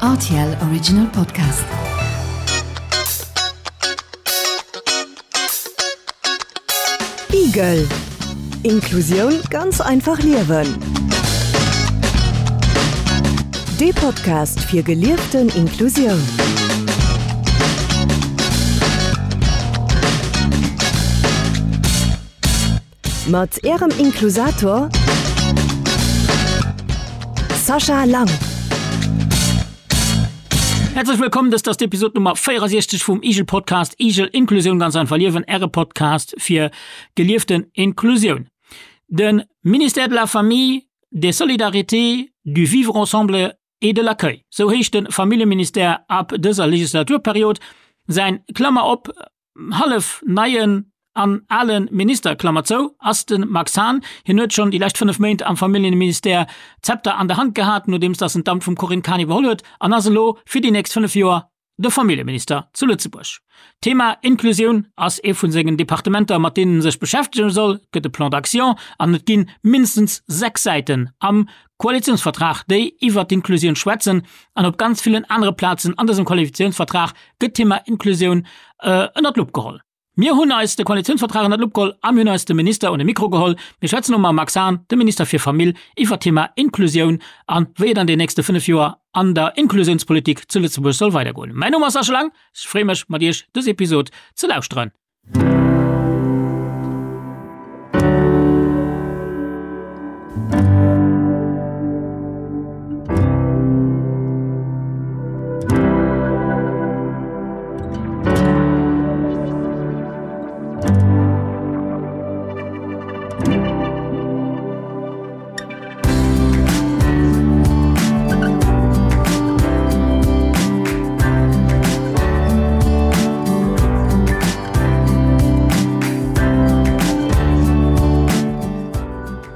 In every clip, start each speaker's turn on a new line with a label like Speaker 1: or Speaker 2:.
Speaker 1: Rtl Original Podcast. Igel. Inklusioun ganz einfach liewen. Dee Podcast fir gelieften Inklusioun. Mat Ärem Inklusator Sascha Lang.
Speaker 2: Häerzlech wëllkomm, dëst ass d'Episod Nummer 64 vum Igel Podcast, Igel Inklusioun ganz einfach liewen, Äre Podcast fir gelieften Inklusioun. De Ministère de la Famille, des Solidarités, du Vivre ensemble et de l'accueil, sou heescht de Familljeministère ab dëser Legislaturperiod. Säin, Klammer op, hallef neien an ale Minister, Klammer zou, ass de Max Hahn. Hien huet schonn déi lescht 5 Méint am Familljeministère d'Zepter an der Hand gehat, nodeems datt en d'Amt vum Corinne Cahen iwwerholl huet, an ass elo fir déi nächst 5 Joer de Familljeminister zu Lëtzebuerg. D'Thema Inklusioun ass ee vu sengen Departementer, mat deenen en sech beschäftege soll. Et gëtt e Plan d'action an et gi mindestens 6 Säiten am Koalitiounsvertrag, déi iwwert d'Inklusioun schwätzen. An op ganz villen anere Plazen an dësem Koalitiounsvertrag gëtt d'Thema Inklusioun ënnert d'Lupp geholl. Mir hunn eis de Koalitiounsvertrag ënnert d'Lupp geholl a mir hunn eis de Minister un de Mikro geholl. Mir schwätzen elo mam Max Hahn, dem Minister fir Famill, iwwert d'Thema Inklusioun a wéi et an den nächste 5 Joer an der Inklusiounspolitik zu Lëtzebuerg soll weidergoen. Mäin Numm ass Sascha Lang, ech freeë mech mat Iech dës Episod ze lauschteren.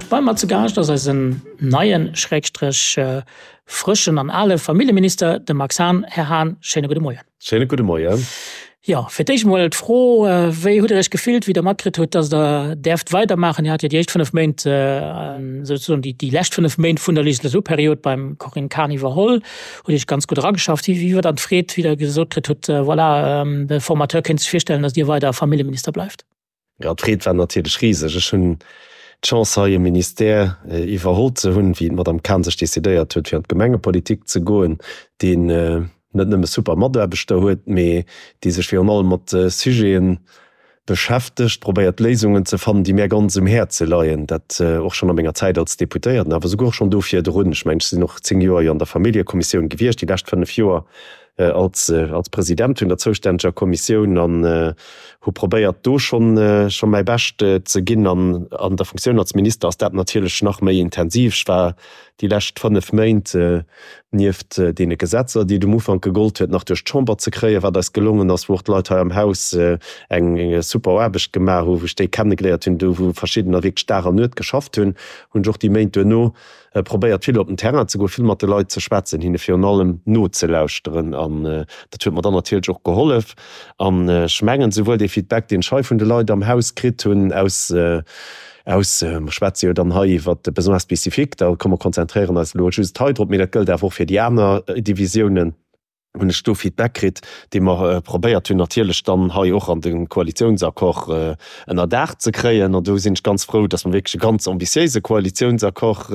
Speaker 2: Bei mer zu Gaascht ass eisen neien, Schrägstrech frëschen an ale Familljeminister, de Max Hahn. Här Hahn, schéine gudde Moien.
Speaker 3: Schéine gudde Moien.
Speaker 2: Jo, fir d'éischt emol d'Fro, Wéi hutt Der Iech gefillt, wéi Der matkritt hutt, dass Der däerft weidermaachen? Dir hat jo déi éischt 5 Méint, souzesoen déi lescht 5 Méint vun der Legislaturperiod beim Corinne Cahen iwwerholl, hutt Iech ganz gutt erageschafft. Wéi war dann d'Freed, wéi Der gesot kritt hutt, voilà, de Formateur kéint sech virstellen, dass Dir weider Familljeminister bleift?
Speaker 3: Jo, d'Freed war natierlech riseg. Ech hunn d'Chance hei e Ministère iwwerholl ze hunn, wéi d'Madame Cahen sech decidéiert huet fir an d'Gemengepolitik ze goen, deen net nëmme super Mataarbechter huet, mee dee sech virun allem mat Sujete beschäftegt, probéiert Léisungen ze fannen, déi mär ganz um Häerze leien. Dat och schonn a menger Zäit als Deputéierten, awer souguer och schonn do virdrun. Ech mengen, ech sinn och 10 Joer jo an der Familljekommissioun gewiescht, déi lescht 5 Joer als als President vun der zoustänneger Kommissioun an hu probéiert do schonn scho mäi Bescht ze ginn. An an der Funktioun als Minister ass dat natierlech nach méi intensiv. Ech war déi lescht 5 Méint nieft deene Gesetzer, déi et um Ufank gegollt huet nach duerch d'Chamber ze kréien, wat eis gelongen ass, wou och d'Leit hei am Haus eng super Aarbecht gemaach hu, wou ech déi kennegeléiert hunn, do wou verschiddener wierklech Dag an Nuet geschafft hunn, hunn ech och déi Méint duerno probéiert vill op den Terrain ze goen, vill mat de Leit ze schwätzen, hinne virun allem nozelauschteren an dat huet mer dann natierlech och gehollef. An ech mengen, souwuel dee Feedback, deen ech hei vun de Leit am Haus kritt hunn aus, aus, mer schwätze jo dann hei iwwert de Besoins spécifiques, da komm mer konzentréieren eis elo just hei drop, mee dat gëllt awer och fir déi aner Divisiounen, hunn ech do Feedback kritt, dee mer probéiert hunn natierlech dann hei och an de Koalitiounsaccord ënnerdaach ze kréien. An do sinn ech ganz frou, dass mer wierklech e ganz ambitiéise Koalitiounsaccord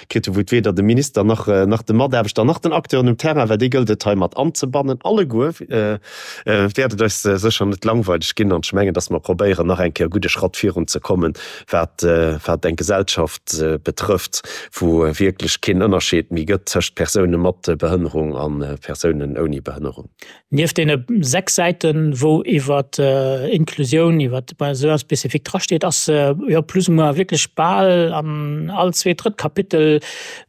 Speaker 3: kritt hunn, wou et weder dem Minister nach nach de Mataarbechter nach den Acteuren um Terrain, well déi gëllt et hei mat anzebannen alleguer, wäert et eis sécher net langweileg ginn. An ech mengen, dass mer probéieren nach eng Kéier e gudde Schratt virunzekommen, wat wat eng Gesellschaft betrëfft, wou wierklech keen Ënnerscheed méi gëtt tëscht Persoune mat Behënnerung a Persounen ouni Behënnerung.
Speaker 2: Nieft deene 6 Säiten, wou iwwer Inklusioun, iwwer Besoins spécifiques drasteet, ass jo plus ou moins wierklech bal an all zweet, drëtt Kapitel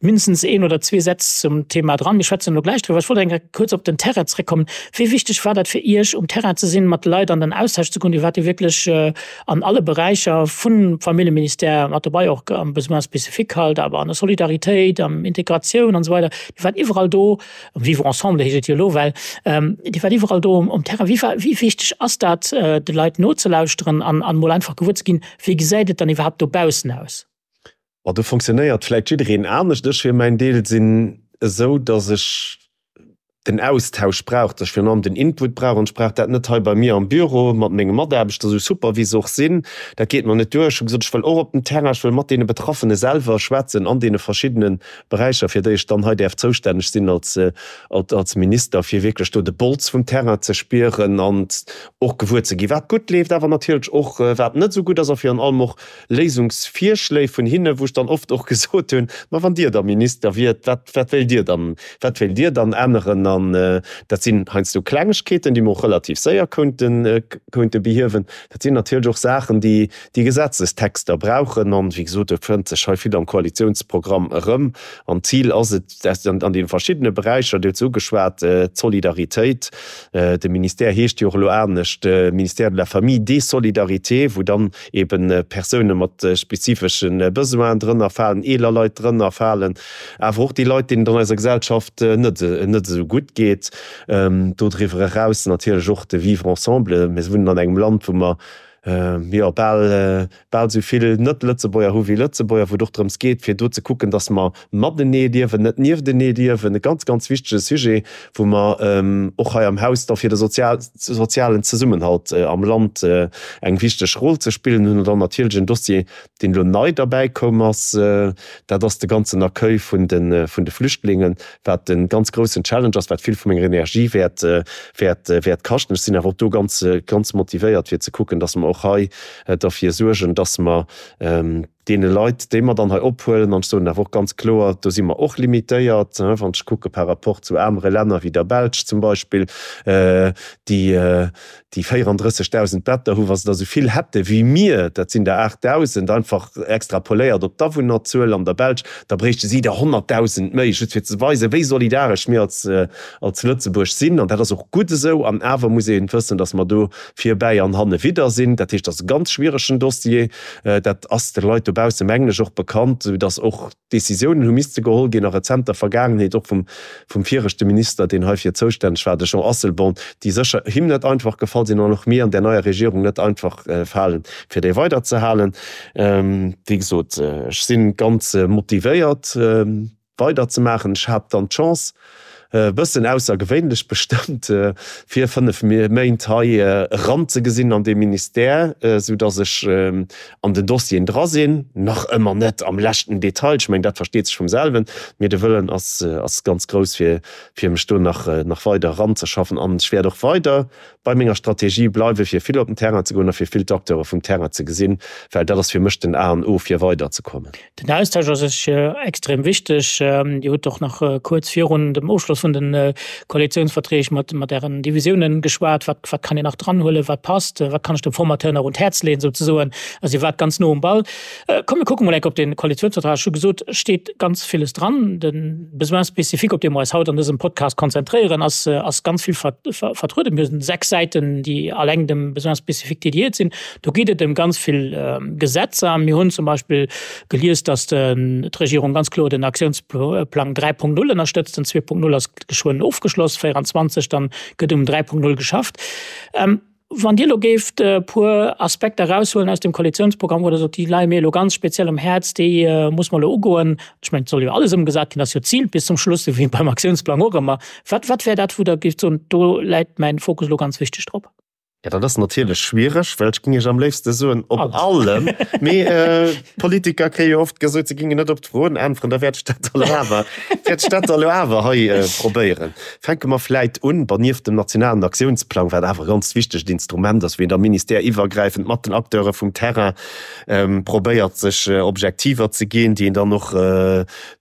Speaker 2: mindestens een oder zwee Sätz zum Thema dran. Mir schwätzen elo gläich driwwer. Ech wollt eng Kéier kuerz op den Terrain zréckkommen. Wéi wichteg war dat fir Iech, um Terrain ze sinn, mat de Leit an den Austausch ze goen? Dir waart jo wierklech an alle Beräicher vum Familljeministère mat dobei, och am Besoins spécifiques halt, awer an der Solidaritéit, am Integratioun an esou weider. Dir waart iwwerall do, am Vivre ensemble heescht et jo elo well, Dir waart iwwerall do um Terrain. Wéi war, wéi wichteg ass dat, de Leit nozelauschteren an an emol einfach gewuer ze ginn, wéi gesäit et dann iwwerhaapt dobaussen aus?
Speaker 3: Ma do fonctionnéiert vläicht jiddereen anescht. Ech fir mäin Deel sinn esou, datt ech. Den Austausch brauch, dass ech virun allem den Input brauch an ech brauch dat net hei bei mir am Büro mat menge Mataarbechter, esou super wéi se och sinn, dat geet mer net duer. Ech hu gesot, ech wëll och op den Terrain, ech wëll mat deene Betraffene selwer schwätzen an deene verschiddene Beräicher, fir déi ech dann hei däerf zoustänneg sinn als, als Minister, fir wierklech do de Bols vum Terrain ze spieren an och gewuer ze ginn, wat gutt leeft, awer natierlech och wat net esou gutt ass a virun allem och Léisungsvirschléi vun hinne, wou ech dann oft och gesot hunn, Ma wann Dir da Minister wiert, wat, wat wéilt Dir dann, wat wéilt Dir dann änneren? An dat sinn heiansdo Klengegkeeten, déi mer och relativ séier konnten, konnte behiewen. Dat sinn natierlech och Saachen, déi, déi Gesetzestexter brauchen. An, wéi gesot, do fënnt sech hei vill am Koalitionsprogramm erëm. An d'Zil ass et, an deene verschiddene Beräicher, Dir hutt se ugeschwat, d'Solidaritéit, de Ministère heescht jo och elo anescht, Ministère de la Famille, des Solidarités, wou dann eben Persoune mat spezifesche Besoinen drënner falen, eeler Leit drënner falen, awer och déi Leit, deenen et an eiser Gesellschaft net net esou gutt geet. Dodriwwer eraus natierlech och de Vivre ensemble. Mir wunnen an engem Land, wou mer jo bal bal esou vill Net-Lëtzebuerger hu wéi Lëtzebuerger, wou et och drëms geet, fir do ze kucken, datt mer matenee liewen, net nieftenee liewen. E ganz, ganz wichtege Sujet, wou mer och hei am Haus da fir de sozialen Zesummenhalt am Land eng wichteg Roll ze spillen hunn. An dann natierlech en Dossier, deen elo nei derbäi koum ass, dat ass de ganzen Accueil vun de vun de Flüchtlingen, wat e ganz groussen Challenge ass, wat vill vu menger Energie wäert wäert wäert kaschten. Ech sinn awer och do ganz ganz motivéiert, fir ze kucken, dass mer och hei derfir suergen, dass mer deene Leit, déi mer dann hei ophuelen, an ech soen awer och ganz kloer, do si mer och limitéiert, wann ech kucke par rapport zu anere Länner wéi der Belsch zum Beispill, déi déi 34.000 Better hu, wa se der esou vill hätte wéi mir, dat sinn der 8.000, einfach extrapoléiert op d'Awunnerzuel an der Belsch, da bréichte si der 100.000 méi, just fir ze weisen, wéi solidaresch mir als als Lëtzebuerg sinn. An dat ass och gutt esou. An awer muss ee wëssen, datt mer do virbäi an hannewidder sinn. Dat heescht, dat ass e ganz schwieregen Dossier. Dat ass de Leit dobausse mengen ech och bekannt, esou datt och Décisiounen hu misste geholl ginn a rezenter Vergaangenheet, och vum vum viregte Minister, deen heifir zoustänneg war, de Jean Asselborn, déi sécher him net einfach gefall sinn an och mir an där neier Regierung net einfach falen, fir déi weiderzehalen. Wéi gesot, ech si ganz motivéiert. Weider ze maachen. Ech hat dann d'Chance, e bëssen aussergewéinlech bestëmmt, fir 5 Méint hei eranzegesinn an dee Ministère, sou datt ech an den Dossieren dra sinn. Nach ëmmer net am leschten Detail, ech mengen dat versteet sech vum selwen, mee de Wëllen ass ass ganz grouss fir fir mech do nach nach weider eranzeschaffen. An ech wäert och weider bei menger Strategie bleiwen, fir vill op den Terrain ze goen a fir vill d'Acteure vum Terrain ze gesinn, well dat ass fir mech den A an O fir weiderzekommen.
Speaker 2: Den Austausch ass sech extrem wichteg. Dir hutt och nach kuerz virun dem Ofschloss vun de Koalitiounsverträg mat mat Ären Divisiounen geschwat. Wat wat kann een nach dranhuelen? Wat passt? Wat kann ech dem Formateur nach un d'Häerz leeën souzesoen? Also Dir waart ganz no um Ball. Komm mir kucke mol enk op de Koalitiounsvertrag. Ech hu gesot, et steet ganz villes dran. De Besoin spécifique, op dee mer eis haut an dësem Podcast konzentréieren, ass ass ganz vill vertrueden. Mir hunn 6 Säiten, déi alleng dem Besoin spécifique dédiéiert sinn. Do geet et ëm ganz vill Gesetzer. Mir hunn zum Beispill gelies, datt d'Regierung ganz kloer den Aktiounsplang 3.0 ënnerstëtzt. Den 2.0 ass geschwënn ofgeschloss, 24 dann gëtt um 3.0 geschafft. Wann Dir elo géift e puer Aspekter eraushuelen aus dem Koalitionsprogramm, wou Der sot, déi leie mir elo ganz speziell um Häerz, déi muss mer elo ugoen. Ech mengen, et soll jo alles ëmgesat ginn, ass jo d'Zil bis zum Schluss, esou wéi beim Aktiounsplang och ëmmer. Wat, wat wär dat, wou Der géift soen, do läit mäin Fokus elo ganz wichteg drop?
Speaker 3: Ja, dat ass natierlech schwiereg, well ech géing Iech am léifste soen, op allem. Mee d'Politiker kréie jo oft gesot, se géingen net op d'Froen äntweren. Da wäert ech dat elo awer, wäert ech dat elo awer hei probéieren. Fänke mer vläit un, bon, nieft dem nationalen Aktiounsplang, wat awer e ganz wichtegt Instrument ass, wou een da ministèreiwwergräifend mat den Acteure vum Terrain probéiert, sech Objektiver ze ginn, déi een dann och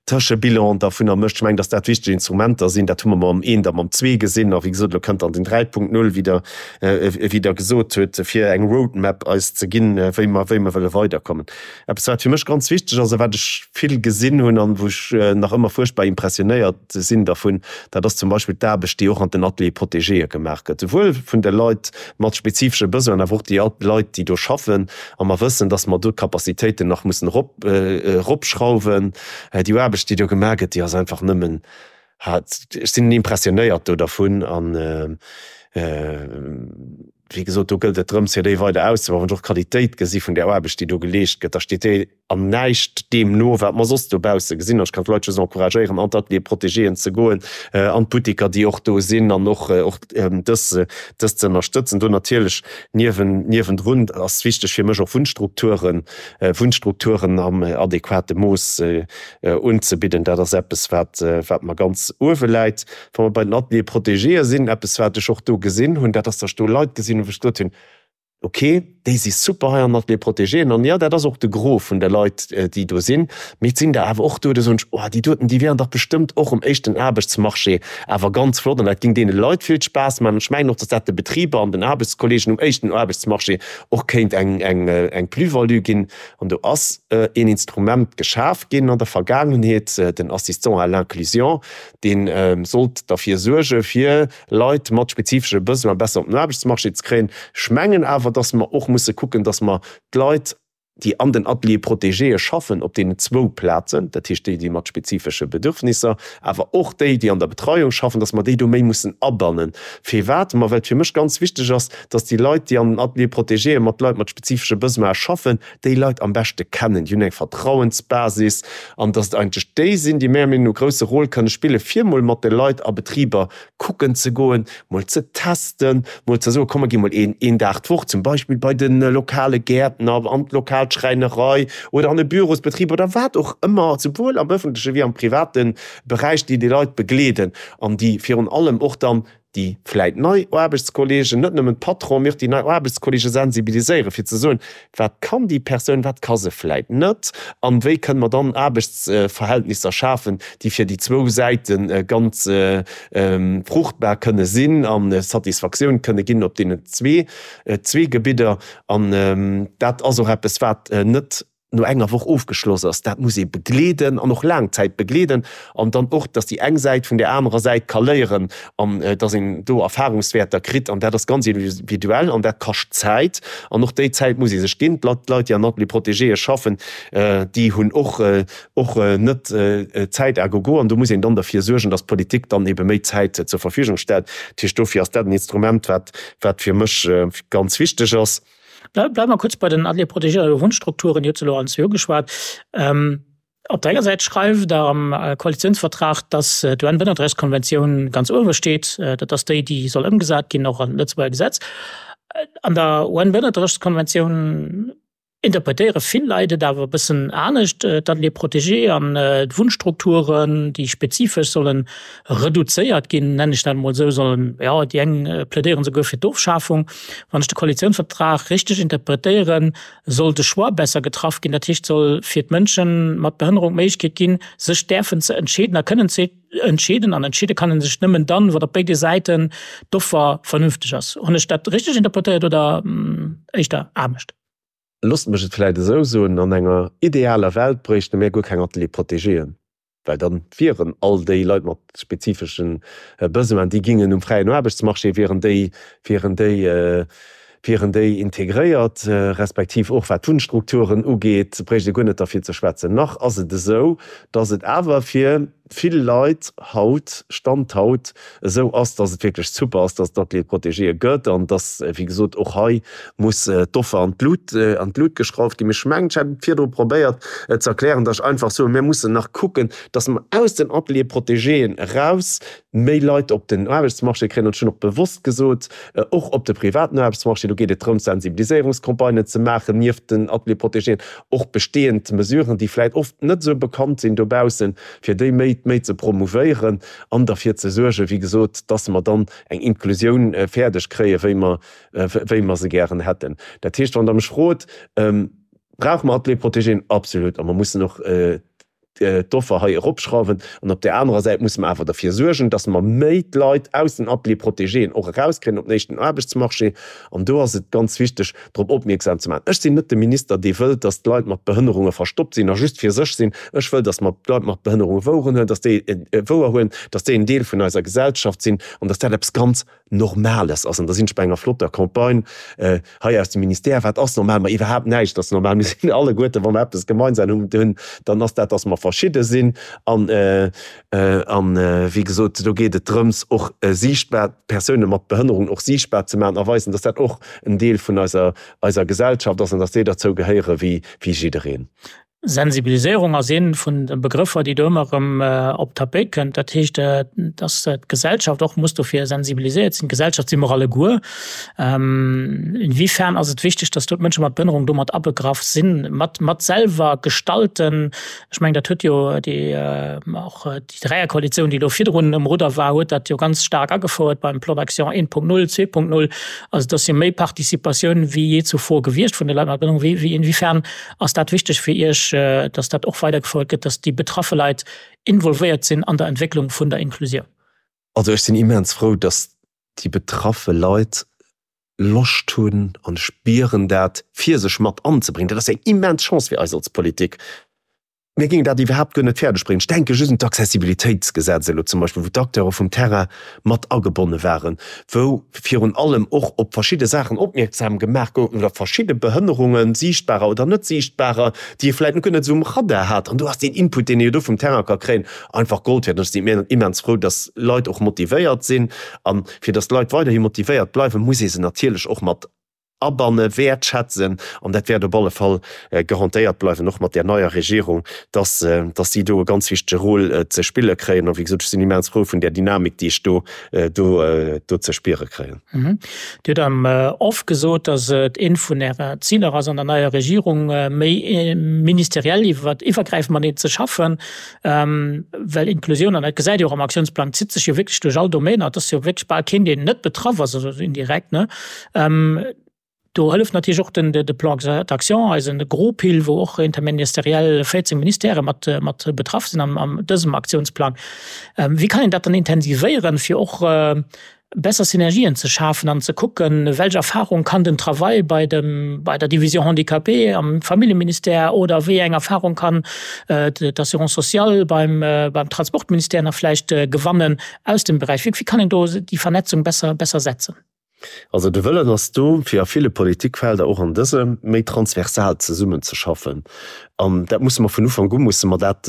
Speaker 3: Tëschebilan dervunner mécht. Ech mengen, datt dat wichteg Instrumenter sinn. Dat hu mer mam eent a mam zwee gesinn. A wéi gesot, elo kënnt dann den 3.0, wéi Der, wéi Der gesot hutt, fir eng Roadmap eis ze ginn, wéi mer, wéi mer wëlle weiderkommen. Eppes, wat fir mech ganz wichteg ass a wat ech vill gesinn hunn an wou ech nach ëmmer fuerchtbar impressionéiert sinn dervun, dat ass zum Beispill d'Aarbecht, déi och an den Ateliers protégéë gemaach gëtt, souwuel vun de Leit mat spezifesche Besoinen, awer och déi Leit, déi do schaffen. A mer wëssen, datt mer do d'Capacitéiten nach mussen erop, eropschrauwen. Déi Aarbecht, déi do gemaach gëtt, déi ass einfach nëmmen, ech sinn impressionéiert do dervun an. Wéi gesot, do gëllt et drëms, fir déi weider auszebauen. Wann ech och d'Qualitéit gesi vun där Aarbecht, déi do geleescht gëtt, da steet déi an näischt deem no, wat mer soss dobausse gesinn. An ech kann d'Leit just encouragéieren, an d'Ateliere protégéen ze goen, an d'Butteker, déi och do sinn, an och dës dës ze ënnerstëtzen. Do natierlech niewen niewendrun ass wichteg fir mech och Wunnstrukturen, Wunnstrukturen am adequate Mooss unzebidden. Dat ass eppes, wat wat mer ganz uewe läit. Wa mer bei den Ateliers protégéë sinn, eppes wat ech och do gesinn hunn, dat ass, datt ech do Leit gesinn hunn, wou ech gesot hunn, ok, déi si super hei an den Ateliers protégéen an jo, dat ass och de Gros vun de Leit, déi do sinn, mee et sinn der awer och do, do soen ech, oh, déi doten, déi wieren dach bestëmmt och um éischten Aarbechtsmarché awer ganz flott an dat géing deene Leit vill Spaass maachen. An ech mengen och, datt dat de Betriber an den Aarbechtskolleegen um éischten Aarbechtsmarché och kéint eng Plus-value ginn. An do ass een Instrument geschaf ginn an der Vergaangenheet, den Assistant à l'inclusion, Dee sollt derfir suerge fir Leit mat spezifesche Besoin besser op den Aarbechtsmarché ze kréien. Ech mengen awer, dass mer och musse kucken, dass mer d'Leit, déi an den Ateliers protégéë schaffen, op deenen zwou Plazen, dat heescht déi, déi mat spezifesche Bedürfnisser, awer och déi, déi an der Betreiung schaffen, dass mer déi do méi mussen abannen. Firwat? Ma well et fir mech ganz wichteg ass, dass déi Leit, déi an den Ateliers protégéë mat Leit mat spezifesche Besoine schaffen, déi Leit am beschte kennen, déi hunn eng Vertrauensbasis an dass et eigentlech déi sinn, déi menger Meenung no e grousse Rôle kënne spille fir mol mat de Leit a Betriber kucken ze goen, mol ze testen, mol ze soen, komm mer gi mol een een Dag d'Woch zum Beispill bei de lokale Gäertner, an d'lokal Schräinerei oder an e Bürosbetrib oder wat och ëmmer, souwuel am ëffentleche wéi am private Beräich, déi déi Leit begleeden an déi virun allem och dann déi vläit nei Aarbechtskolleegen, net nëmmen d'Patronen, mee och déi nei Aarbechtskolleege sensibiliséieren, fir ze soen, wat kann déi Persoun, wat ka se vläit net an wéi kënne mer dann Aarbechtsverhältnisser schafen, déi fir déi zwou Säite ganz fruchtbar kënne sinn a Satisfaktioun kënne ginn op deenen zwee Gebidder. An dat ass och eppes, wat net no enger Woch ofgeschloss ass, dat muss ee begleeden an och laang Zäit begleeden an dann och, dass déi eng Säit vun där anerer Säit ka léieren an dass een do Erfahrungswäerter kritt an dat ass ganz individuell an dat kascht Zäit an och déi Zäit muss ee sech ginn. D'Leit, d'Leit déi an Ateliers protégéë schaffen, déi hunn och och net Zäit à gogo an do muss een dann derfir suergen, dass d'Politik dann ebe méi Zäit zur Verfügung stellt. Dat heescht, dofir ass dat en Instrument, wat wat fir mech ganz wichteg ass.
Speaker 2: Bleiwe mer kuerz bei den Ateliers protégés oder Wunnstrukturen. Dir hutt se elo allen zwee ugeschwat. Op der enger Säit schreift Der am Koalitiounsvertrag, dass d'UN-Bënnertrechtskonventioun ganz uewe steet. Dat ass déi, déi soll ëmgesat ginn, och an d'Lëtzebuerger Gesetz. An der UN-Bënnertrechtskonventioun interpretéiere vill Leit et awer e bëssen anescht, d'Ateliers protégés an d'Wunnstrukturen, déi spezifesch sollen reduzéiert ginn, nennen ech dat emol esou, sollen, jo, déi eng plädéieren souguer fir d'Ofschafung. Wann ech de Koalitiounsvertrag richteg interpretéieren, soll de Choix besser getraff ginn. Dat heescht, soll fir d'Mënsche mat Behënnerung d'Méiglechkeet ginn, sech däerfen ze entscheeden a kënnen ze entscheeden. An entscheede kann ee sech nëmmen dann, wann op béide Säiten d'Offer vernünfteg ass. Hunn ech dat richteg interpretéiert oder éischter anescht?
Speaker 3: Loosst mech et vläicht esou soen, An enger idealer Welt bréichte mir guer keng Ateliers protégéen. Well dann wieren all déi Leit mat spezifesche Besoinen, déi gingen um fräien Aarbechtsmarché, wieren déi, wieren déi, wieren déi integréiert, respektiv och wat d'Wunnstrukturen ugeet, bréicht ee guer net derfir ze schwätzen. Nach ass et esou, dass et awer fir vill Leit haut, Stand haut, esou ass, dass et wierklech super ass, dass et Ateliers protégéë gëtt an dass, wéi gesot, och hei muss d'Offer an d'Lut, an d'Lut geschrauft ginn. Mee ech mengen, ech hat et virdru probéiert ze erklären, dass ech einfach soen, mir mussen nach kucken, dass mer aus den Ateliers protégéen eraus méi Leit op den Aarbechtsmarché kréien. An ech hunn och bewosst gesot, och op de privaten Aarbechtsmarché. Do geet et drëms, Sensibiliséierungscampagnen ze maachen nieft den Ateliers protégéen, och bestehend Mesuren, déi vläicht oft net esou bekannt sinn dobaussen, fir déi méi, méi ze promouvéieren an derfir ze suergen, wéi gesot, dass mer dann eng Inklusioun fäerdeg kréien, wéi mer, wéi mer se gären hätten. Dat heescht, wann Der mech frot, Brauche mer Ateliers protégéen? Absolut. A mer mussen och d'Offer hei eropschrauwen. An op där anerer Säit musse mer awer derfir suergen, dass mer méi d'Leit aus den Ateliers protégéen och erauskréien op den éischten Aarbechtsmarché. An do ass et ganz wichteg, drop opmierksam ze maachen. Ech sinn net de Minister, dee wëllt, dass d'Leit mat Behënnerunge verstoppt sinn a just fir sech sinn. Ech wëll, dass mer d'Leit mat Behënnerunge woueren huelen, dass déi wouerhuelen, dass déi en Deel vun eiser Gesellschaft sinn an dass dat eppes ganz Normales ass. An da sinn ech bei enger flotter Campagne hei aus dem Ministère. Wat ass normal? Ma iwwerhaapt näischt ass normal. Mir sinn alleguerten, wa mer eppes gemeinsam hunn, dann ass dat, dass mer. verschidde sinn. An, an wéi gesot, do geet et drëms, och siichtbar, d'Persoune mat Behënnerung och siichtbar ze maachen a weisen, dass dat och en Deel vun eiser, eiser Gesellschaft ass an dass déi derzou gehéiere wéi, wéi jiddereen.
Speaker 2: Sensibiliséierung ass ee vun de Begrëffer, déi do ëmmer erëm op d'Tapéit kënnt. Dat heescht, dass d'Gesellschaft och muss dofir sensibiliséiert sinn. D'Gesellschaft si mer alleguer. Inwiefern ass et wichteg, dass do d'Mënsche mat Behënnerung do mat abegraff sinn, mat mat selwer gestalten? Ech mengen, dat huet jo déi och déi Dräierkoalitioun, déi do virdrun um Rudder war, huet dat jo ganz staark agefouert beim Plan d'action 1.0, 2.0. Also et ass jo méi Participatioun wéi jee zuvor gewiescht vun de Leit mat Behënnerung. Wéi inwiefern Ass dat wichteg fir Iech, dass dat och weidergefouert gëtt, dass déi betraffe Leit involvéiert sinn an der Entwécklung vun der Inklusioun?
Speaker 3: Also ech sinn immens frou, dass déi betraffe Leit Loscht hunn, an ech spieren dat, fir sech mat anzebréngen. Dat ass eng immens Chance fir eis als Politik. Mir géingen dat iwwerhaapt guer net fäerdeg bréngen. Ech denke just un d'Accessibilitéitsgesetz elo zum Beispill, wou d'Acteure vum Terrain mat agebonne waren, wou virun allem och op verschidde Saachen opmierksam gemaach goufen oder verschidde Behënnerungen, siichtbarer oder net siichtbarer, déi ee vläicht guer net esou um Radar hat. An do ass deen Input, deen ee jo do vum Terrain ka kréien, einfach Gold wäert. An ech sinn immens frou, dass Leit och motivéiert sinn. A fir dass d'Leit weiderhi motivéiert bleiwen, muss ee se natierlech och mat Abanne wäertschätzen, an dat wäert op alle Fall garantéiert bleiwen, och mat där neier Regierung, dass, dass si do e ganz wichtege Rôle ze spille kréien. A wéi gesot, ech sinn immens frou vun där Dynamik, déi ech do, do, do ze spiere kréien.
Speaker 2: Dir hutt am Off gesot, dass et eent vun Ärer Ziler ass, an der neier Regierung méi ministeriell iwwer, iwwergräifend mateneen ze schaffen, well Inklusioun, an dat gesäit Dir och am Aktiounsplang, zitt sech jo wierklech duerch all Domainer. Et ass jo wierklech bal keen, deen net betraff ass, also indirekt, ne? Do hëlleft natierlech och den de Plan d'action, eisen Gros-Pil, wou och interministeriell 14 Ministèrë mat mat betraff sinn am an dësem Aktiounsplang. Wéi kann een dat dann intensivéieren, fir och besser Synergien ze schafen an ze kucken, welch Erfahrung kann den Travail bei dem bei der Division Handicapés am Familljeministère oder wéi eng Erfahrung kann d'Assurance sociale beim beim Transportministère nach vläicht gewannen aus dem Beräich? Wéi kann een do déi Vernetzung besser besser setzen?
Speaker 3: Also de Wëllen ass do, fir a ville Politikfelder, och an dësem, méi transversal zesummenzeschaffen. An dat musse mer vun Ufank u musse mer dat,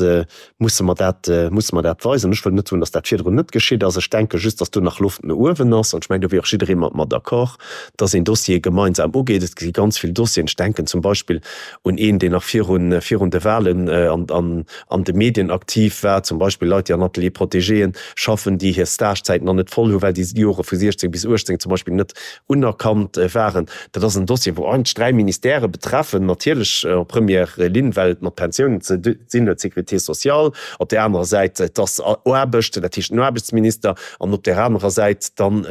Speaker 3: musse mer dat, musse mer dat weisen. Ech wëll net soen, datt dat virdrun net geschitt ass. Ech denke just, datt do nach Loft no uewen ass. An ech mengen, do wier och jidderee mat mer d'accord, datt een Dossiere gemeinsam ugeet. Et gi ganz vill Dossieren, ech denken zum Beispill un een, deen nach virun, virun de Wahlen an, an, an de Medien aktiv war, zum Beispill Leit, déi an Ateliers protégéen schaffen, déi hir Stagezäit nach net voll hunn, well déi Jore vu 16 bis 18 zum Beispill net unerkannt waren. Dat ass en Dossier, wou eigentlech dräi Ministèrë betreffen, natierlech en première ligne, well et mat Pensiounen ze dinn huet, d'Sécurité sociale, op där anerer Säit, et ass Aarbecht, dat heescht den Aarbechtsminister, an op där anerer Säit dann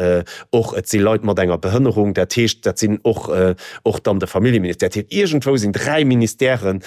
Speaker 3: och, et si Leit mat enger Behënnerung, dat heescht, dat sinn och, och dann de Familljeministère. Dat heescht, iergendwou sinn dräi Ministèren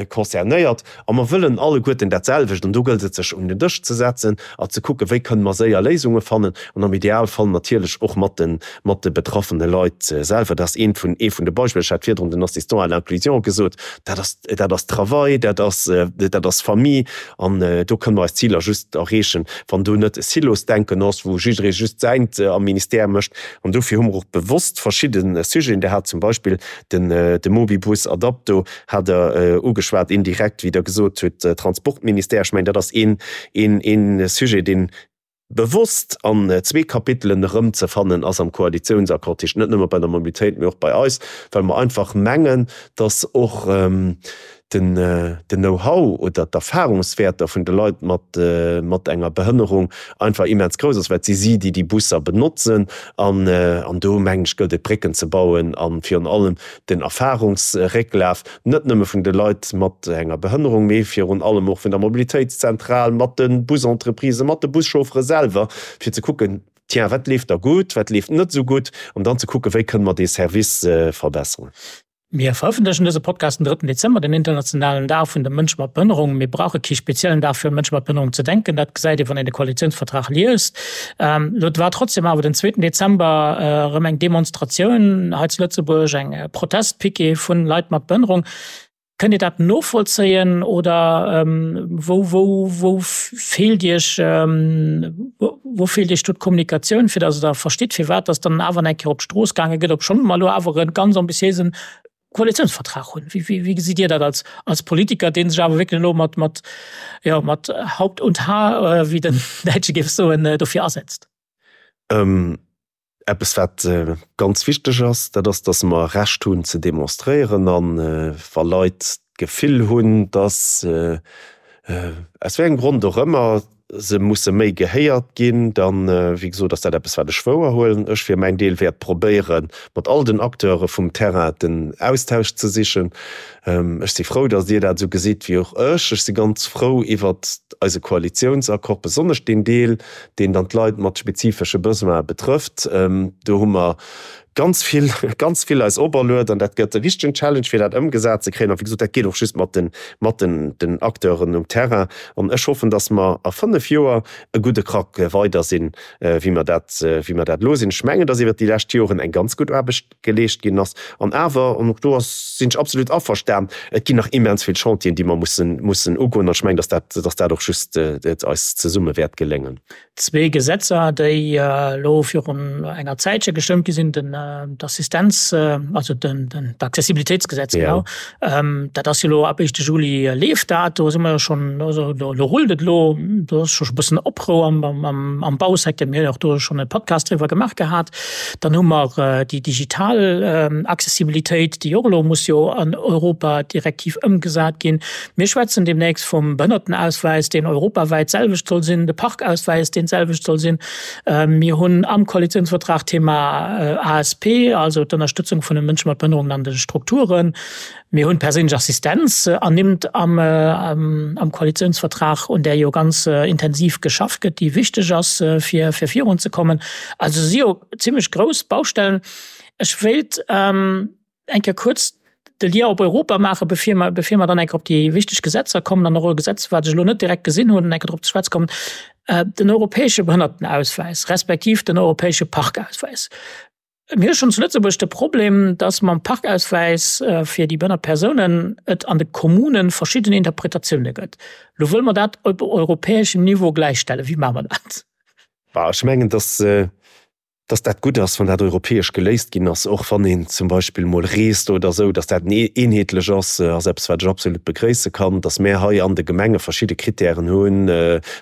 Speaker 3: concernéiert a mer wëllen alleguerten dat selwecht. An do gëllt et, sech un den Dësch ze setzen a ze kucken, wéi kënne mer séier Léisunge fannen an am Idealfall natierlech och mat de, mat de betraffene Leit selwer. Dat ass eent vun, ee vun de Beispiller. Ech hat virdrun den Assistant à l'inclusion gesot. Dat ass, dat ass Travail, dat ass, dat ass Famille. An do kënne mer eis Ziler just erreechen, wann do net e Silosdenken ass, wou jidderee just säint am Ministère mécht. An dofir hu mer och bewosst verschidde Sujeten, Dir hat zum Beispill den, de Mobibus Adapto hat Der ugeschwat, indirekt, wéi Der gesot hutt, Transportministère. Ech mengen, dat ass een, een, een Sujet, deen bewosst an zwee Kapitelen erëmzefannen ass am Koalitiounsaccord, dat heescht net nëmme bei der Mobilitéit, mee och bei eis, well mer einfach mengen, dass och den Know-how oder d'Erfahrungswäerter vun de Leit mat mat enger Behënnerung einfach immens grouss ass, well et si si, déi déi Busser benotzen. An do, mengen ech, gëllt et, Brécken ze bauen a virun allem den Erfahrungsrécklaf, net nëmme vun de Leit mat enger Behënnerung, mee virun allem och vun der Mobilitéitszentral, mat de Busentreprisen, mat de Buschauffere selwer, fir ze kucken, tiens, wat leeft da gutt, wat leeft net esou gutt, an dann ze kucken, wéi kënne mer dee Service verbesseren.
Speaker 2: Mir verëffentlechen dëse Podcast den drëtten Dezember, den internationalen Dag vun de Mënsche mat Behënnerung. Mir brauche kee speziellen Dag fir un Mënsche mat Behënnerung ze denken, dat gesäit ee wann een de Koalitiounsvertrag liest. Elo war trotzdem awer den zweeten Dezember erëm eng Demonstratioun hei zu Lëtzebuerg, eng Protestpiquet vun Leit mat Behënnerung. Kënnt Dir dat novollzéien oder wou, wou, wou feelt Iech, wou feelt Iech do d'Kommunikatioun, fir datt Der verstitt, firwat datt dann awer eng Kéier op d'Strooss gaange gëtt, obschonn mer elo awer e ganz ambitiéisen. Koalitiounsvertrag hunn. Wéi, wéi, wéi gesitt Dir dat als, als Politiker, dee sech awer wierklech elo mat, mat, jo, mat Haupt und Haar, wéi den Däitsche géif soen, dofir asetzt?
Speaker 3: Eppes wat ganz wichteg ass, dat ass, datt mer Recht hunn ze demonstréieren an wa Leit d'Gefill hunn, datt, aus wéi engem Grond och ëmmer, se musse méi gehéiert ginn, dann, wéi gesot, ass dat eppes wat ech wouerhuelen. Ech fir mäin Deel wäert probéieren, mat all den Acteure vum Terrain den Austausch ze sichen. Ech si frou, datt Dir dat esou gesitt wéi och ech. Ech si ganz frou iwwert eise Koalitiounsaccord, besonnesch deen Deel, deen dann d'Leit mat spezifesche Besoine betrëfft. Do hu mer ganz vill, ganz vill eis operluet an dat gëtt e richtegen Challenge, fir dat ëmgesat ze kréien. A wéi gesot, dat geet och just mat den, mat den, den Acteuren um Terrain. An ech hoffen, datt mer a fënnf Joer e gudde Krack weider sinn, wéi mer dat, wéi mer dat elo sinn. Ech mengen, datt iwwert déi lescht Joren eng ganz gutt Aarbecht geleescht ginn ass. An awer, an och do ass, sinn ech absolut averstan, et ginn nach immens vill Chantieren, déi mer mussen, mussen ugoen. An ech mengen, datt dat, datt dat och just eis zesumme wäert geléngen.
Speaker 2: Zwee Gesetzer, déi elo virun enger Zäitche gestëmmt gi sinn, den d'Assistenz, also den d'Accessibilitéitsgesetz, genau, dat ass jo elo ab éischte Juli leeft dat. Do si mer jo schonn, also do rullt et elo, do ass scho e bëssen Oprou am Bausecteur. Mir hunn och do schonn e Podcast driwwer gemaach gehat. Dann hu mer déi digital Accessibilitéit, déi och elo muss jo an Europadirektiv ëmgesat ginn. Mir schwätzen deemnächst vum Behënnertenauswäis, deen europawäit d'selwecht soll sinn, de Parkauswäis, deen d'selwecht soll sinn. Mir hunn am Koalitionsvertrag d'Thema ASP, also d'Ënnerstëtzung vun de Mënsche mat Behënnerungen an de Strukturen. Mir hunn d'perséinlech Assistenz ernimmt am Koalitionsvertrag, un där jo ganz intensiv geschafft gëtt, déi wichteg ass, fir virunzekommen. Also si jo zimlech grouss Baustellen. Ech wéilt eng Kéier kuerz de Lien op Europa maachen, bevir mer, bevir mer dann eng Kéier op déi wichteg Gesetzer kommen an och e Gesetz, wat ech elo net direkt gesinn hunn, eng Kéier drop ze schwätze kommen, den europäesche Behënnertenauswäis respektiv den europäesche Parkauswäis. Mir hu schonn zu Lëtzebuerg de Problem, dass mam Parkauswäis fir déi behënnert Persounen et an de Kommune verschidden Interpretatioune gëtt. Elo wëlle mer dat op europäeschem Niveau gläichstellen. Wéi maache mer dat?
Speaker 3: Bah, ech mengen, dass dass dat gutt ass, wann dat europäesch geléist ginn ass, och wann een zum Beispill mol reest oder esou, dass dat eenheetlech ass, ass eppes, wat ech absolut begréisse kann. Dass mär hei an de Gemenge verschidde Kritären hunn,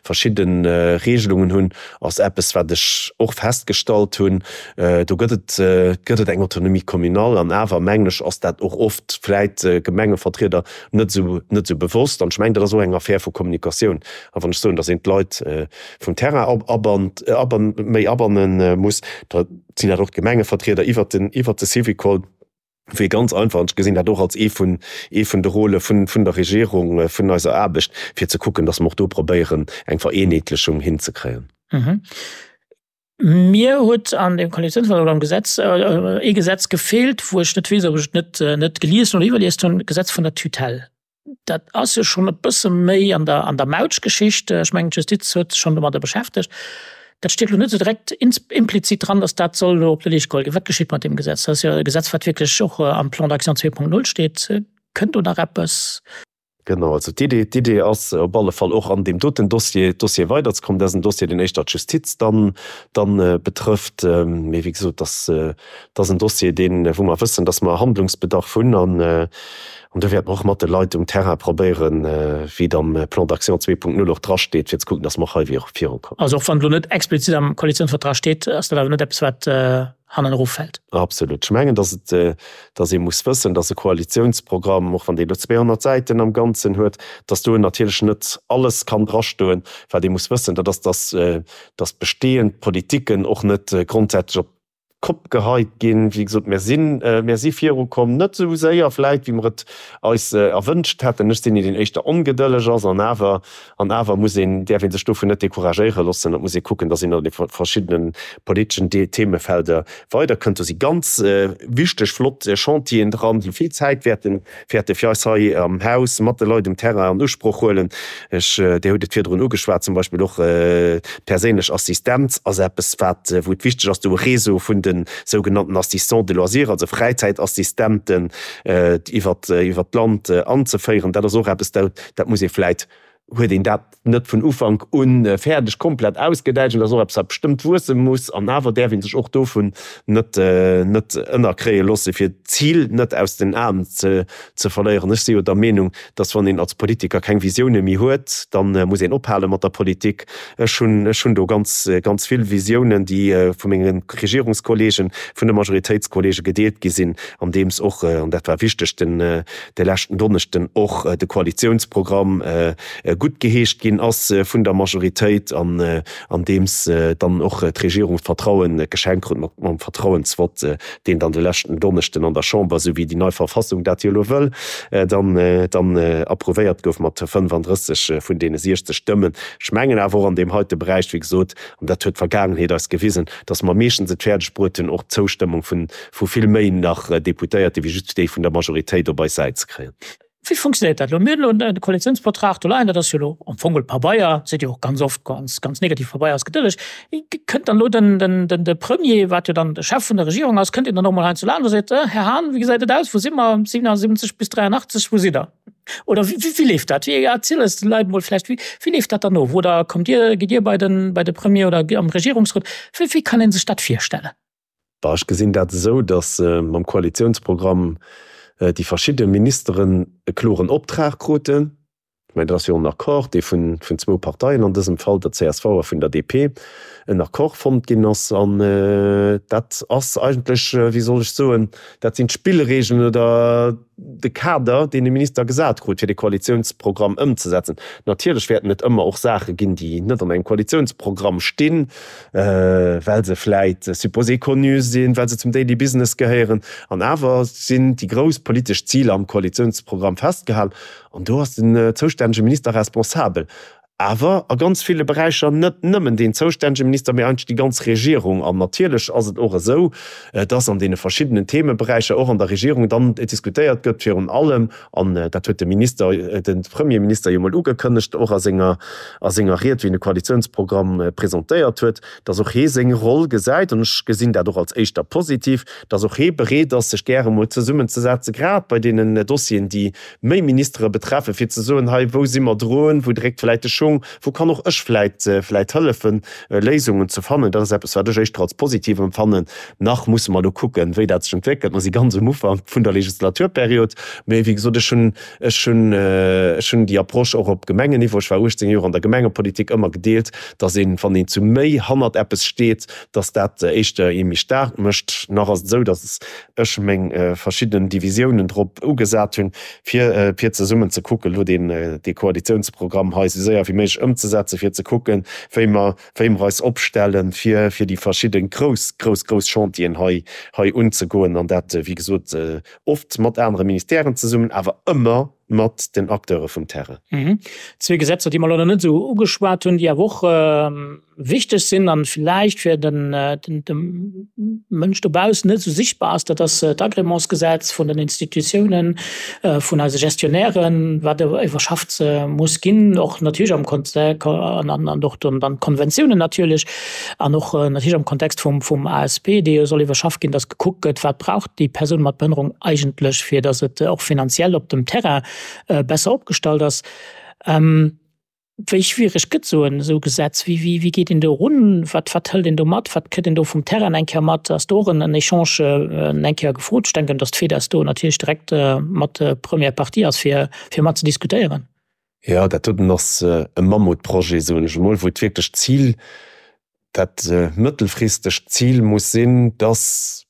Speaker 3: verschidde Regelungen hunn, ass eppes, wat ech och festgestallt hunn. Do gëtt et, gëtt et eng Autonomie communale an awer, mengen ech, ass dat och oft vläit Gemengevertrieder net esou, net esou bewosst. An ech mengen, dat ass och eng Affär vu Kommunikatioun. A wann ech soen, dass een d'Leit vum Terrain abannt, aban, méi abanne muss, da sinn dat och d'Gemengevertrieder iwwert den, iwwert de Syvicol, wéi ganz einfach, an ech gesinn dat och als ee vun, ee vun de Rôle vun, vun der Regierung, vun eiser Aarbecht, fir ze kucken, dass mer och do probéieren, eng Vereenheetlechung hinzekréien.
Speaker 2: Mir huet an dem Koalitionsvertrag oder am Gesetz ee Gesetz gefeelt, wou ech net weess, ob ech et net, net gelies hunn oder iwwerliest hunn, d'Gesetz vun der Tutelle. Dat ass jo schonn e bësse méi an der, an der Mautschgeschicht. Ech mengen, d'Justiz huet sech schonn domadder beschäftegt. Dat steet elo net esou direkt implizit dran, datt dat soll elo op de Leescht geholl ginn. Wat geschitt mat deem Gesetz? Dat ass jo e Gesetz, wat wierklech och am Plan d'action 2.0 steet. Kënnt do nach eppes?
Speaker 3: Genau, also d'Idee, d'Idee ass op alle Fall och an deem doten Dossier, Dossier weiderzekommen. Dat ass en Dossier, deen éischter d'Justiz dann, dann betrëfft. Mee wéi gesot, dass, dat ass en Dossier, deen, wou mer wëssen, dass mer Handlungsbedarf hunn an, an do wäerte mer och mat de Leit um Terrain probéieren, wéi et am Plan d'action 2.0 och drasteet, fir ze kucken, dass mer och hei virukommen.
Speaker 2: Also och wann et elo net explizit am Koalitionsvertrag steet, ass dat awer net eppes, wat hannen eroffält.
Speaker 3: Absolut. Ech mengen, dass et, dass ee muss wëssen, dass e Koalitionsprogramm, och wann dee elo 200 Säiten am Ganzen huet, dass do natierlech net alles kann drastoen. Wat ee muss wëssen, dat ass, dass, dass bestehend Politiken och net grondsätzlech op d'Kopp geheit ginn. Wéi gesot, mir sinn, mir si virukomm, net esou séier vläit, wéi mer et eis erwënscht hätten. Ech sinn een, deen éischter ongedëlleg ass, an awer, an awer muss een, däerf ee sech dovun net decouragéiere loossen. Et muss ee kucken, dass een an de verschiddene politeschen Themefelder weiderkënnt. Do si ganz wichteg, flott Chantieren dran, déi vill Zäit wäerten wäerte fir eis hei am Haus mat de Leit um Terrain an Usproch huelen. Ech, Dir hutt et virdrun ugeschwat, zum Beispill och d'perséinlech Assistenz ass eppes, wat, wou et wichteg ass, do e Réseau vun de sougenannten Assistants de loisirs, also Fräizäitassistenten, iwwert, iwwert d'Land anzeféieren. Dat ass och eppes, dat, dat muss ee vläit. huet een dat net vun Ufank u fäerdeg komplett ausgedäitscht. An dat ass och eppes, wat bestëmmt wuesse muss. An awer däerf ee sech och dovun net net ënnerkréie loosse, fir d'Zil net aus den Aen ze ze verléieren. Ech si jo der Meenung, dass wann een als Politiker keng Visioune méi huet, da muss een ophale mat der Politik. Ech hunn ech hunn do ganz ganz vill Visiounen, déi vu menge Regierungskollegen, vun de Majoritéitskollege gedeelt gi sinn, andeems och, an dat war wichteg den de leschten Donneschden, och de Koalitiounsprogramm guttgeheescht ginn ass vun der Majoritéit an andeems dann och d'Regierung d'Vertrauen geschenkt krut mat mam Vertrauensvott, deen dann de leschten Donneschden an der Chamber, esou wéi déi nei Verfassung dat jo elo wëll, dann dann approuvéiert gouf mat 35 vun deene 60 Stëmmen. Ech mengen awer och an deem heite Beräich, wéi gesot, an dat huet d'Vergaangenheet eis gewisen, datt mer meeschtens et fäerdeg bruet hunn, och d'Zoustëmmung vun vu vill méi nach Deputéierte wéi just déi vun der Majoritéit op eis Säit ze kréien.
Speaker 2: Wéi funktionéiert dat elo? Mir hunn elo de Koalitiounsvertrag do leien, dat ass jo elo am Fong geholl Pabeier, seet jo och ganz oft, ganz, ganz negativ Pabeier ass gedëlleg. Kënnt dann elo den, den, den, de Premier, wat jo dann de Chef vun der Regierung ass, kënnt deen dann och mol hei zu Land a seet, Här Hahn, wéi gesäit et aus, wou si mer, 77 bis 83, wou sidd Der? Oder wéi, wéi leeft dat? Wéi, erziel eis de Leit mol vläicht, wéi, wéi leeft dat dann of? Oder kommt Dir, gitt Dir bei den, bei de Premier oder am Regierungsrot? Wéi, wéi kann ee sech dat virstellen?
Speaker 3: Bah, ech gesinn dat esou, datt mam Koalitiounsprogramm déi verschidde Ministeren e kloren Optrag kruten. Ech mengen, dat ass jo en Accord, dee vun zwou Parteien, an dësem Fall der csv a vun der DP, en Accord fonnt ginn ass. An dat ass eigentlech, wéi soll ech soen, dat sinn d'Spillregeln oder de Kader, deen de Minister gesat krut, fir de Koalitiounsprogramm ëmzesetzen. Natierlech wäerten et ëmmer och Saache ginn, déi net an engem Koalitiounsprogramm stinn, well se vläit supposé connu sinn, well se zum Daily Business gehéieren. An awer sinn déi grouss politesch Ziler am Koalitiounsprogramm festgehalen. An do ass den zoustännege Minister responsabel. Awer a ganz ville Beräicher net nëmmen deen zoustännege Minister, mee eigentlech déi ganz Regierung. An natierlech ass et och esou, dass an deene verschiddenen Themeberäicher och an der Regierung dann diskutéiert gëtt, virun allem, an dat huet de Minister, de Premierminister jo mol ugekënnegt, och a senger, a senger Ried, wéi en de Koalitionsprogramm presentéiert huet, dass och hee seng Roll gesäit, an ech gesinn dat och als éischter positiv, dass och hee bereet ass, sech gäre mol zesummenzesetzen, grad bei deenen Dossieren, déi méi Ministere betreffen, fir ze soen, hei, wou si mer drun, wou dréckt vläit de Schung, wou kann och ech vläit, vläit hëllefen, Léisungen ze fannen. Dat ass eppes, wat ech éischter als positiv empfannen. Nach musse mer elo kucken, wéi dat sech entwéckelt. Mer si ganz um Ufank vun der Legislaturperiod. Mee wéi gesot, ech hunn, ech hunn, ech hunn déi Approche och op Gemengenniveau, ech war 18 Joer an der Gemengepolitik, ëmmer gedeelt, dass een, wann een zu méi hannert eppes steet, dass dat éischter ee méi staark mécht. Nach ass et esou, dass ech meng verschidden Divisiounen drop ugesat hunn, fir fir zesummen ze kucken, elo deen dee Koalitionsprogramm hei esou séier wéi méiglech ëmzesetzen, fir ze kucken, wéi mer wéi mer eis opstellen, fir fir déi verschidde grouss, grouss, grouss Chantieren hei hei unzegoen, an dat, wéi gesot, oft mat anere Ministèren zesummen, awer ëmmer mat den Acteure vum Terrain.
Speaker 2: Zwee Gesetzer, déi mer elo nach net esou ugeschwat hunn, déi awer och wichteg sinn an villäicht fir den dem Mënsch dobaussen net esou sichtbar ass, dat ass d'Agrémentsgesetz vun den Institutiounen, vun eise Gestionnairen, wat iwwerschafft muss ginn, och natierlech am Kontext an och dann d'Konventiounen natierlech an och natierlech am Kontext vum vum ASP, dee jo soll iwwerschafft ginn, dass gekuckt gëtt, wat brauch déi Persoun mat Behënnerung eigentlech, fir dass et och finanziell op dem Terrain besser opgestallt ass. Wéi schwiereg gëtt esou en esou Gesetz? Wéi, wéi, wéi geet een do erun? Wat, wat hëlt een do mat? Wat kritt een do vum Terrain eng Kéier mat? Ass do och en, en Echange eng Kéier gefrot? Ech denken, datt d'FEDES do natierlech direkt mat première partie ass, fir, fir mat ze diskutéieren.
Speaker 3: Jo, dat doten ass e Mammutprojet, soen ech emol, wou et wierklech d'Zil, dat mëttelfristegt Zil muss sinn, datt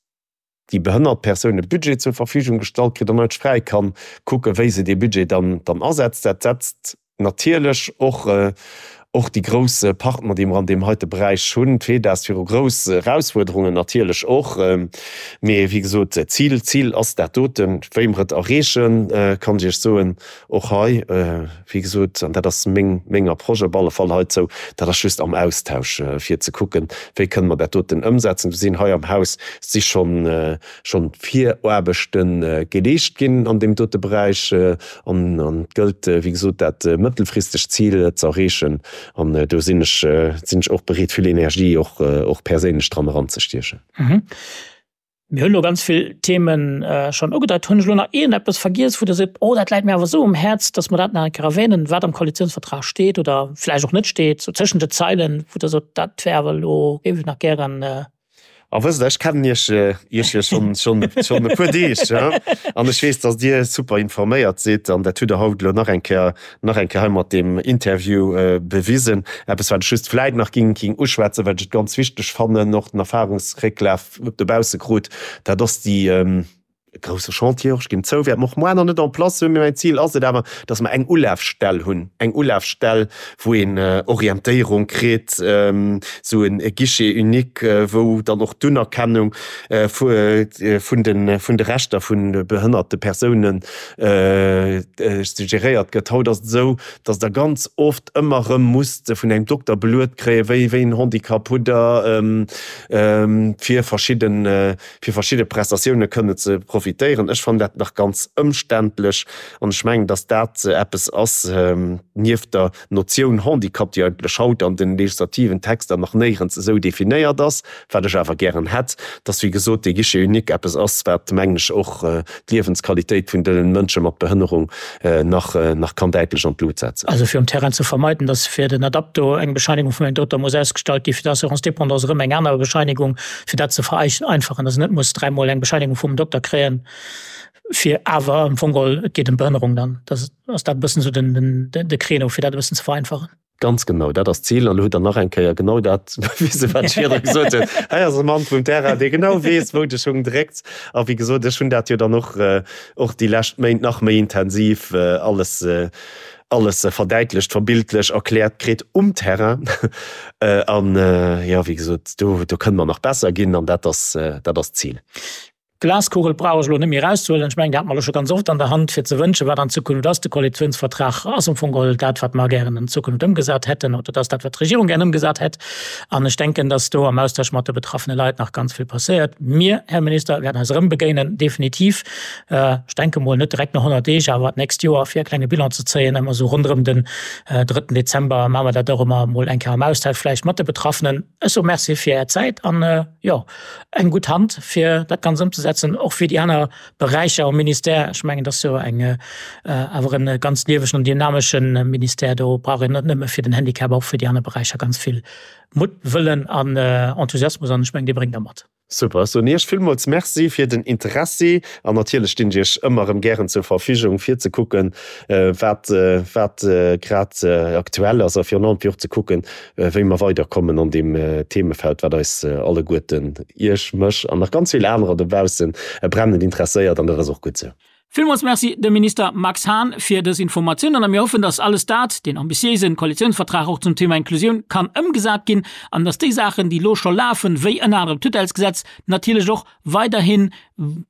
Speaker 3: déi behënnert Persoun e Budget zur Verfügung gestallt kritt an eigentlech fräi kann kucken, wéi se dee Budget dann dann asetzt. Dat setzt natierlech och och déi grouss Partner, déi mer an deem heite Beräich hunn, d'FEDAS, viru grouss Erausfuerderungen natierlech och. Mee wéi gesot, d'Zil, d'Zil ass dat doten. Wéi mer et erreechen, kann ech Iech soen, och hei, wéi gesot, an dat ass meng, meng Approche op alle Fall heizou, dat ass just am Austausch, fir ze kucken, wéi kënne mer dat doten ëmsetzen. Do sinn hei am Haus si schonn, schonn Viraarbechte geleescht ginn an deem dote Beräich. An, an et gëllt, wéi gesot, dat mëttelfristegt Zil ze erreechen. An do sinn ech, sinn ech och bereet, vill Energie och, och perséinlech dran eranzestiechen.
Speaker 2: Mir hunn elo ganz vill Themen schonn ugedeit. Hunn ech elo nach iergendeppes vergiess, wou Der sot, oh dat läit mir awer esou um Häerz, datt mer dat nach eng Kéier erwänen, wat am Koalitionsvertrag steet oder vläicht och net steet, sou tëschent de Zeilen, wou Der sot, dat wär awer elo, géif ech nach gären.
Speaker 3: A wësst Der, ech kennen Iech, Iech jo schonn, schonn, schonn e puer Deeg, an ech weess, datt Dir super informéiert sidd an dat hutt Der haut elo nach eng Kéier, nach eng Kéier hei mat deem Interview bewisen. Eppes, wat ech just vläicht nach ging, ging uschwätzen, well ech et ganz wichteg fannen, och den Erfahrungsrécklaf, dobausse krut, dat ass déi e grousse Chantier och, ech ginn zou, wäerte mer och moar nach net en place hunn, mee mäin Zil ass et awer, dass mer eng Ulafstell hunn, eng Ulafstell, wou een Orientéierung kritt, esou e Guichet unique, wou dann och d'Unerkennung vun de vun de Rechter vu behënnerte Persounen geréiert gëtt. Haut ass et esou, dass Der ganz oft ëmmer erëm musst vun engem Dokter beluet kréien, wéi wéi en Handicap hutt Der, fir verschidden, fir verschidde Prestatioune kënne ze profitéieren. Ech fannen dat nach ganz ëmständlech an ech mengen, dass dat eppes ass, nieft der Notioun Handicap, déi eigentlech haut an de legislativen Texter nach néierens esou definéiert ass, wat ech awer gären hätt, dass, wéi gesot, dee Guichet unique eppes ass, wat, mengen ech, och d'Liewensqualitéit vun de Mënsche mat Behënnerung nach, nach kann däitlech an d'Lut setzen.
Speaker 2: Also fir um Terrain ze vermeiden, dass fir den Adapto eng Bescheinigung vun engem Dokter muss ausgestallt ginn, fir d'Assurance dépendance erëm eng aner Bescheinigung, fir dat ze vereinfachen, dass een net muss dräimol eng Bescheinigung vum Dokter kréien, fir awer am Fong geholl, et geet ëm d'Behënnerung dann. Dat ass dat e bëssen esou den, de Créneau, fir dat e bëssen ze vereinfachen.
Speaker 3: Ganz genau, dat ass d'Zil. An elo hutt Der nach eng Kéier genau dat bewisen, wat ech virdru gesot hunn. Hei ass e Mann vum Terrain, dee genau weess, wou de Schung dréckt. A wéi gesot, ech hunn dat jo dann och, och déi lescht Méint nach méi intensiv alles, alles verdäitlecht, verbildlech erkläert kritt um Terrain. An, jo, wéi gesot, do, do kënne mer nach besser ginn an dat ass, dat ass d'Zil.
Speaker 2: D'Glaskugel brauch ech elo net méi erauszehuelen. Ech mengen, déi hate mer elo scho ganz oft an der Hand, fir ze wënschen, wat an Zukunft ass. De Koalitionsvertrag ass am Fong geholl dat, wat mer gären an Zukunft ëmgesat hätten, oder dat ass dat, wat d'Regierung gären ëmgesat hätt. An ech denken, dass do am Austausch mat de betraffene Leit nach ganz vill passéiert. Mir, Här Minister, wäerten eis erëm begéinen, definitiv. Ech denke mol net direkt no 100 Deeg, awer d'nächst Joer, fir e klenge Bilan ze zéien. Ëmmer esou ronderëm den drëtten Dezember maache mer dat och ëmmer emol eng Kéier am Austausch vläicht mat de Betraffenen. Ech soe Merci fir Är Zäit an, jo, eng gutt Hand fir dat Ganzt ëmzesetzen, och fir déi aner Beräicher am Ministère. Ech mengen, dat ass jo eng awer e ganz liewegen an dynamesche Ministère. Do brauch een net nëmme fir den Handicap, och fir déi aner Beräicher ganz vill Mutt, Wëllen an Enthusiasmus an ech mengen, dee bréngt Der mat.
Speaker 3: Super, ech soen Iech villmools Merci fir den Interessi an natierlech stinn ech Iech ëmmer erëm gären zur Verfügung fir ze kucken, wat wat grad aktuell ass a virun allem fir och ze kucken, wéi mer weiderkommen an deem Themefeld, wat eis alleguerten, Iech, mech an nach ganz vill anerer dobaussen, brennend interesséiert. An dat ass och gutt esou.
Speaker 2: Villmools Merci dem Minister Max Hahn fir dës Informatiounen a mir hoffen, dass alles dat, deen ambitiéisen Koalitionsvertrag och zum Thema Inklusioun, kann ëmgesat ginn an dass déi Saachen, déi elo scho lafen, wéi ënner anerem d'Tutellesgesetz, natierlech och weiderhi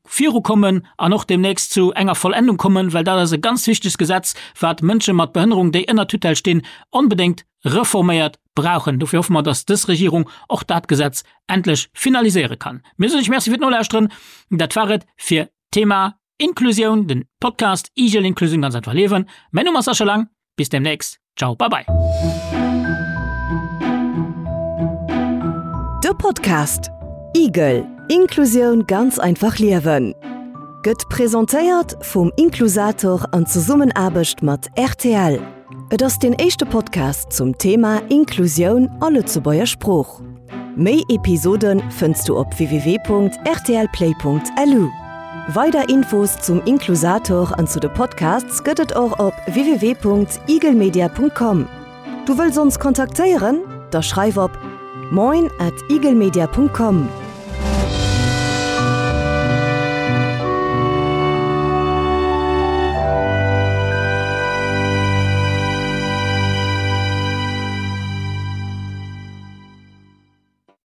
Speaker 2: virukommen an och deemnächst zu enger Vollendung kommen, well dat ass e ganz wichtegt Gesetz, wat Mënsche mat Behënnerung, déi ënner Tutelle stinn, onbedéngt reforméiert brauchen. Dofir hoffe mer, dass dës Regierung och dat Gesetz endlech finaliséiere kann. Mir soen Iech Merci fir d'Nolauschteren. Dat war et fir d'Thema Inklusioun, den Podcast Igel Inklusioun ganz einfach liewen. Mäin Numm ass Sascha Lang. Bis demnächst. Ciao, bye bye.
Speaker 1: De Podcast Igel, Inklusioun ganz einfach liewen gëtt presentéiert vum Inklusator an Zesummenaarbecht mat rtl. Et ass deen éischte Podcast zum Thema Inklusioun a Lëtzebuerger Sprooch. Méi Episode fënns du op www.rtlplay.lu. Weider Infos zum Inklusator an zu de Podcasts gëtt et och op www.eaglemedia.com. Du wëlls ons kontaktéieren? Da schreif op moin at eaglemedia.com.